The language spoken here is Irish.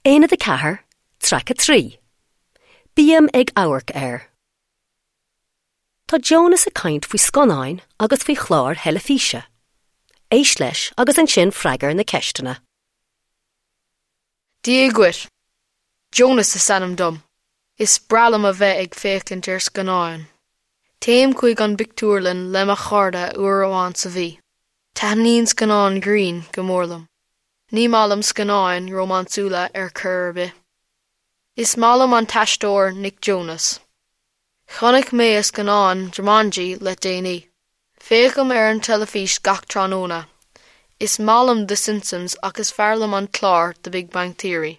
Aonad 4, Traic 3. Bím ag amharc ar. Tá Jonas ag caint faoi scannáin agus faoi chláir theilifíse. Éist leis agus ansin freagair na ceisteanna. Dia dhuit. Jonas is ainm dom. Is breá liom a bheith ag féachaint ar scannáin. Téim chuig an bpictiúrlann le mo chairde uair amháin sa mhí. Taitníonn scannáin grinn go mór liom. Ní maith liom scannáin rómánsúla ar chor ar bith. Is maith liom an t-aisteoir Nick Jonas. Chonaic mé a scannán Jumanji le déanaí. Féachaim ar an teilifís gach tráthnóna. Is maith liom The Simpsons ach is fearr liom an clár The Big Bang Theory.